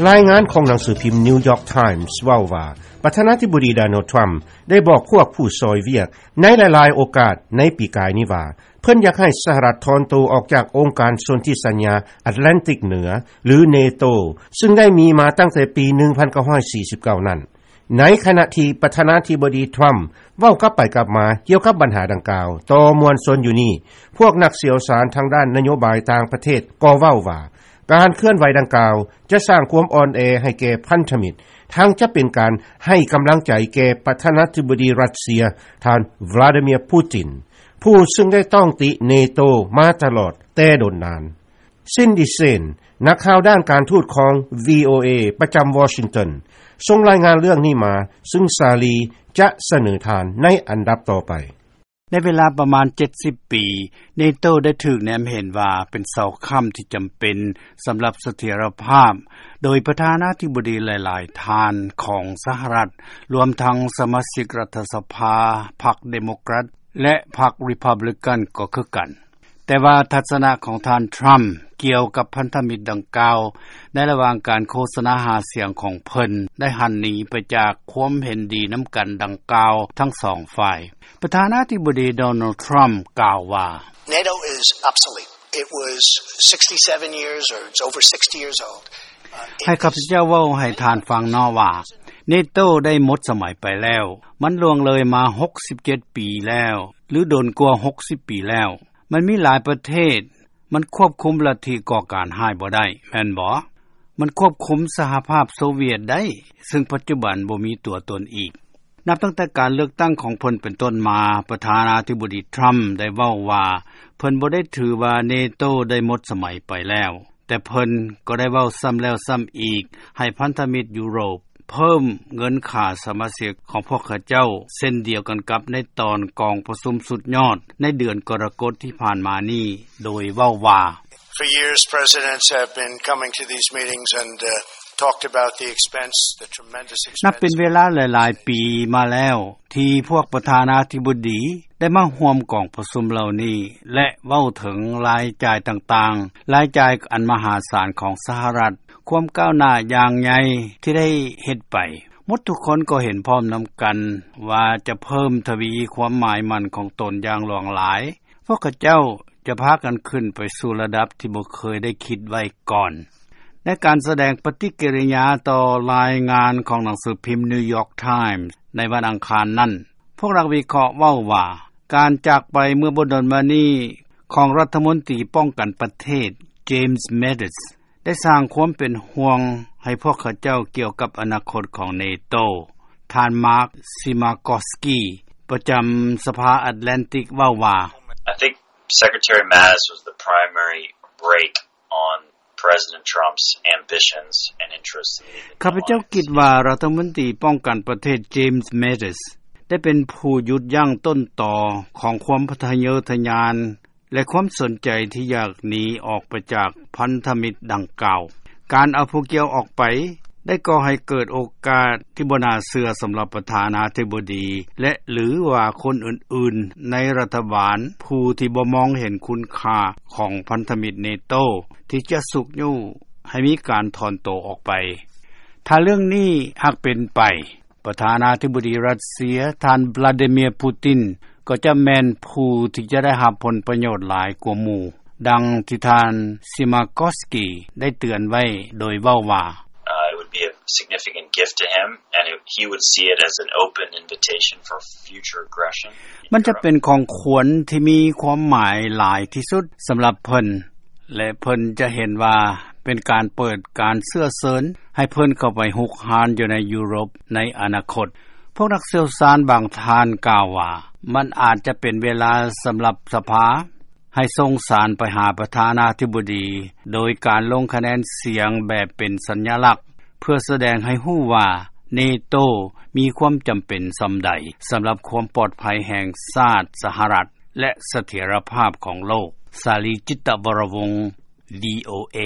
ລາຍງານຂອງໜັງສືພິມ New York Times ເວົ້າວ່າ ປະທານາທິບໍດີ Donald Trump ໄດ້ບອກພວກຜູ້ຊ່ອຍວຽກໃນຫຼາຍໆໂອກາດໃນປີກາຍນີ້ວ່າ ເພິ່ນຢາກໃຫ້ສະຫະລັດຖອນໂຕອອກຈາກອົງການສົນທິສັນຍາ Atlantic ເໜືອ ຫຼື NATO ຊຶ່ງໄດ້ມີມາຕັ້ງແຕ່ປີ 1949 ນັ້ນ. ໃນຂະນະທີ່ປະທານາທິບໍດີ Trump ເວົ້າກັບໄປກັບມາກ່ຽວກັບບັນຫາດັ່ງກ່າວຕໍ່ມວນຊົນຢູ່ນີ້, ພວກນັກຊ່ຽວຊານທາງດ້ານນະໂຍບາຍຕ່າງປະເທດກໍເວົ້າວ່າ ການເຄື່ອນໄຫວດັ່ງກ່າວຈະສ້າງຄວາມອ່ອນແອໃຫ້ແກ່ພັນທະມິດ, ທັງຈະເປັນການໃຫ້ກຳລັງໃຈແກ່ປະທານາທິບໍດີຣັດເຊຍ ທ່ານ Vladimir Putin ຜູ້ຊຶ່ງໄດ້ຕ້ອງຕິ NATO ມາຕະຫຼອດແຕ່ດົນນານ. Cindy Saine ນັກຂ່າວດ້ານການທູດຂອງ VOA ປະຈຳ Washington ສົ່ງລາຍງານເລື່ອງນີ້ມາ, ຊຶ່ງສາລີຈະສະເໜີທ່ານໃນອັນດັບຕໍ່ໄປ. ໃນເວລາປະມານ 70 ປີ, NATO ໄດ້ຖືກແນມເຫັນວ່າເປັນເສົາຄ້ຳທີ່ຈຳເປັນສຳລັບສະຖຽນລະພາບ ໂດຍປະທານາທິບໍດີຫຼາຍໆທ່ານຂອງສະຫະລັດ, ລວມທັງສະມາຊິກລັດຖະສະພາ ພັກເດໂມແຄຣດ ແລະ ພັກຣີພັບບລິກັນກໍຄືກັນ. ແຕ່ວ່າທັດສະນະຂອງທ່ານ Trump ກ່ຽວກັບພັນທະມິດດັ່ງກ່າວ ໃນລະຫວ່າງການໂຄສະນາຫາສຽງຂອງເພິ່ນ ໄດ້ຫັນໜີໄປຈາກຄວາມເຫັນດີນຳກັນດັ່ງກ່າວທັງສອງຝ່າຍ. ປະທານາທິບໍດີ Donald Trump ກ່າວວ່າ NATO is obsolete. It was sixty-seven years, or it's over sixty years old. ໃຫ້ຂ້າພະເຈົ້າເວົ້າໃຫ້ທ່ານຟັງເນາະວ່າ NATO ໄດ້ໝົດສະໄໝໄປແລ້ວ. ມັນລ່ວງເລີຍມາ 67 ປີແລ້ວ ຫຼື ດົນກວ່າ 60 ປີແລ້ວ. ມັນມີຫຼາຍປະເທດ, ມັນຄວບຄຸມລັດທິກໍ່ການຮ້າຍບໍ່ໄດ້, ແມ່ນບໍ່? ມັນຄວບຄຸມສະຫະພາບໂຊວຽດໄດ້, ຊຶ່ງປັດຈຸບັນບໍ່ມີຕົວຕົນອີກ. ນັບຕັ້ງແຕ່ການເລືອກຕັ້ງຂອງເພິ່ນເປັນຕົ້ນມາ, ປະທານາທິບໍດີ Trump ໄດ້ເວົ້າວ່າ ເພິ່ນບໍ່ໄດ້ຖືວ່າ NATO ໄດ້ໝົດສະໄໝໄປແລ້ວ, ແຕ່ເພິ່ນກໍໄດ້ເວົ້າຊ້ຳແລ້ວຊ້ຳອີກ ໃຫ້ພັນທະມິດຢູໂຣບ ເພີ່ມເງິນຄ່າສະມາຊິກຂອງພວກເຂົາເຈົ້າ ເຊັ່ນດຽວກັນກັບໃນຕອນກອງປະຊຸມສຸດຍອດໃນເດືອນກໍລະກົດທີ່ຜ່ານມານີ້ ໂດຍເວົ້າວ່າ For years, presidents have been coming to these meetings and, uh, talked about the expense, the tremendous expense. ນັບເປັນເວລາຫຼາຍໆປີມາແລ້ວ ທີ່ພວກປະທານາທິບໍດີໄດ້ມາຮ່ວມກອງປະຊຸມເຫຼົ່ານີ້ ແລະ ເວົ້າເຖິງລາຍຈ່າຍຕ່າງໆ, ລາຍຈ່າຍອັນມະຫາສານຂອງສະຫະລັດ, ຄວາມກ້າວໜ້າຢ່າງໃຫຍ່ທີ່ໄດ້ເຮັດໄປ. ໝົດທຸກຄົນກໍເຫັນພ້ອມນຳກັນວ່າຈະເພີ່ມທະວີຄວາມໝາຍໝັ້ນຂອງຕົນຢ່າງຫຼວງຫຼາຍ. ພວກເຂົາເຈົ້າຈະພາກັນຂຶ້ນໄປສູ່ລະດັບທີ່ບໍ່ເຄີຍໄດ້ຄິດໄວ້ກ່ອນ. ໃນການສະແດງປະຕິກິລິຍາຕໍ່ລາຍງານຂອງໜັງສືພິມ New York Times ໃນວັນອັງຄານນັ້ນ, ພວກນັກວິເຄາະເວົ້າວ່າ ການຈາກໄປເມື່ອບໍ່ດົນມານີ້ຂອງລັດຖະມົນຕີປ້ອງກັນປະເທດ James Mattis ໄດ້ສ້າງຄວາມເປັນຫ່ວງໃຫ້ພວກເຂົາເຈົ້າກ່ຽວກັບອະນາຄົດຂອງ NATO. ທ່ານ Mark Simakowsky ປະຈຳສະພາ Atlantic ເວົ້າວ່າ I think Secretary Mattis was the primary brake on President Trump's ambitions and interests in the ຂ້າພະເຈົ້າຄິດວ່າລັດຖະມົນຕີປ້ອງກັນປະເທດ James Mattis ໄດ້ເປັນຜູ້ຢຸດຢັ້ງຕົ້ນຕໍຂອງຄວາມທະເຍີທະຍານ ແລະ ຄວາມສົນໃຈທີ່ຢາກໜີອອກໄປຈາກພັນທະມິດດັ່ງກ່າວ. ການເອົາຜູ້ກ່ຽວອອກໄປໄດ້ກໍ່ໃຫ້ເກີດໂອກາດທີ່ບໍ່ໜ້າເຊື່ອສຳລັບປະທານາທິບໍດີ ແລະ ຫຼືວ່າຄົນອື່ນໆໃນລັດຖະບານ ຜູ້ທີ່ບໍ່ມອງເຫັນຄຸນຄ່າຂອງພັນທະມິດ NATO ທີ່ຈະຊຸກຍູ້ໃຫ້ມີການຖອນໂຕອອກໄປ. ຖ້າເລື່ອງນີ້ຫາກເປັນໄປ, ປະທານາທິບໍດີຣັດເຊຍ ທ່ານ Vladimir Putin ກໍຈະແມ່ນຜູ້ທີ່ຈະໄດ້ຮັບຜົນປະໂຫຍດຫຼາຍກວ່າໝູ່, ດັ່ງທີ່ທ່ານ Simakowsky ໄດ້ເຕືອນໄວ້ໂດຍເວົ້າວ່າ Uh, it would be a significant gift to him, and it, he would see it as an open invitation for future aggression. ມັນຈະເປັນຂອງຂວັນທີ່ມີຄວາມໝາຍຫຼາຍທີ່ສຸດສຳລັບເພິ່ນ ແລະ ເພິ່ນຈະເຫັນວ່າເປັນການເປີດການເຊື້ອເຊີນໃຫ້ເພິ່ນເຂົ້າໄປຮຸກຮານຢູ່ໃນຢູໂຣບໃນອະນາຄົດ. ພວກນັກຊ່ຽວຊານບາງທ່ານກ່າວວ່າ ມັນອາດຈະເປັນເວລາສຳລັບສະພາໃຫ້ສົ່ງສານໄປຫາປະທານາທິບໍດີ ໂດຍການລົງຄະແນນສຽງແບບເປັນສັນຍະລັກ ເພື່ອສະແດງໃຫ້ຮູ້ວ່າ NATO ມີຄວາມຈຳເປັນສ່ຳໃດສຳລັບຄວາມປອດໄພແຫ່ງຊາດສະຫະລັດ ແລະ ສະຖຽນລະພາບຂອງໂລກ. ສາລີ ຈິດຕະວໍລະວົງ VOA.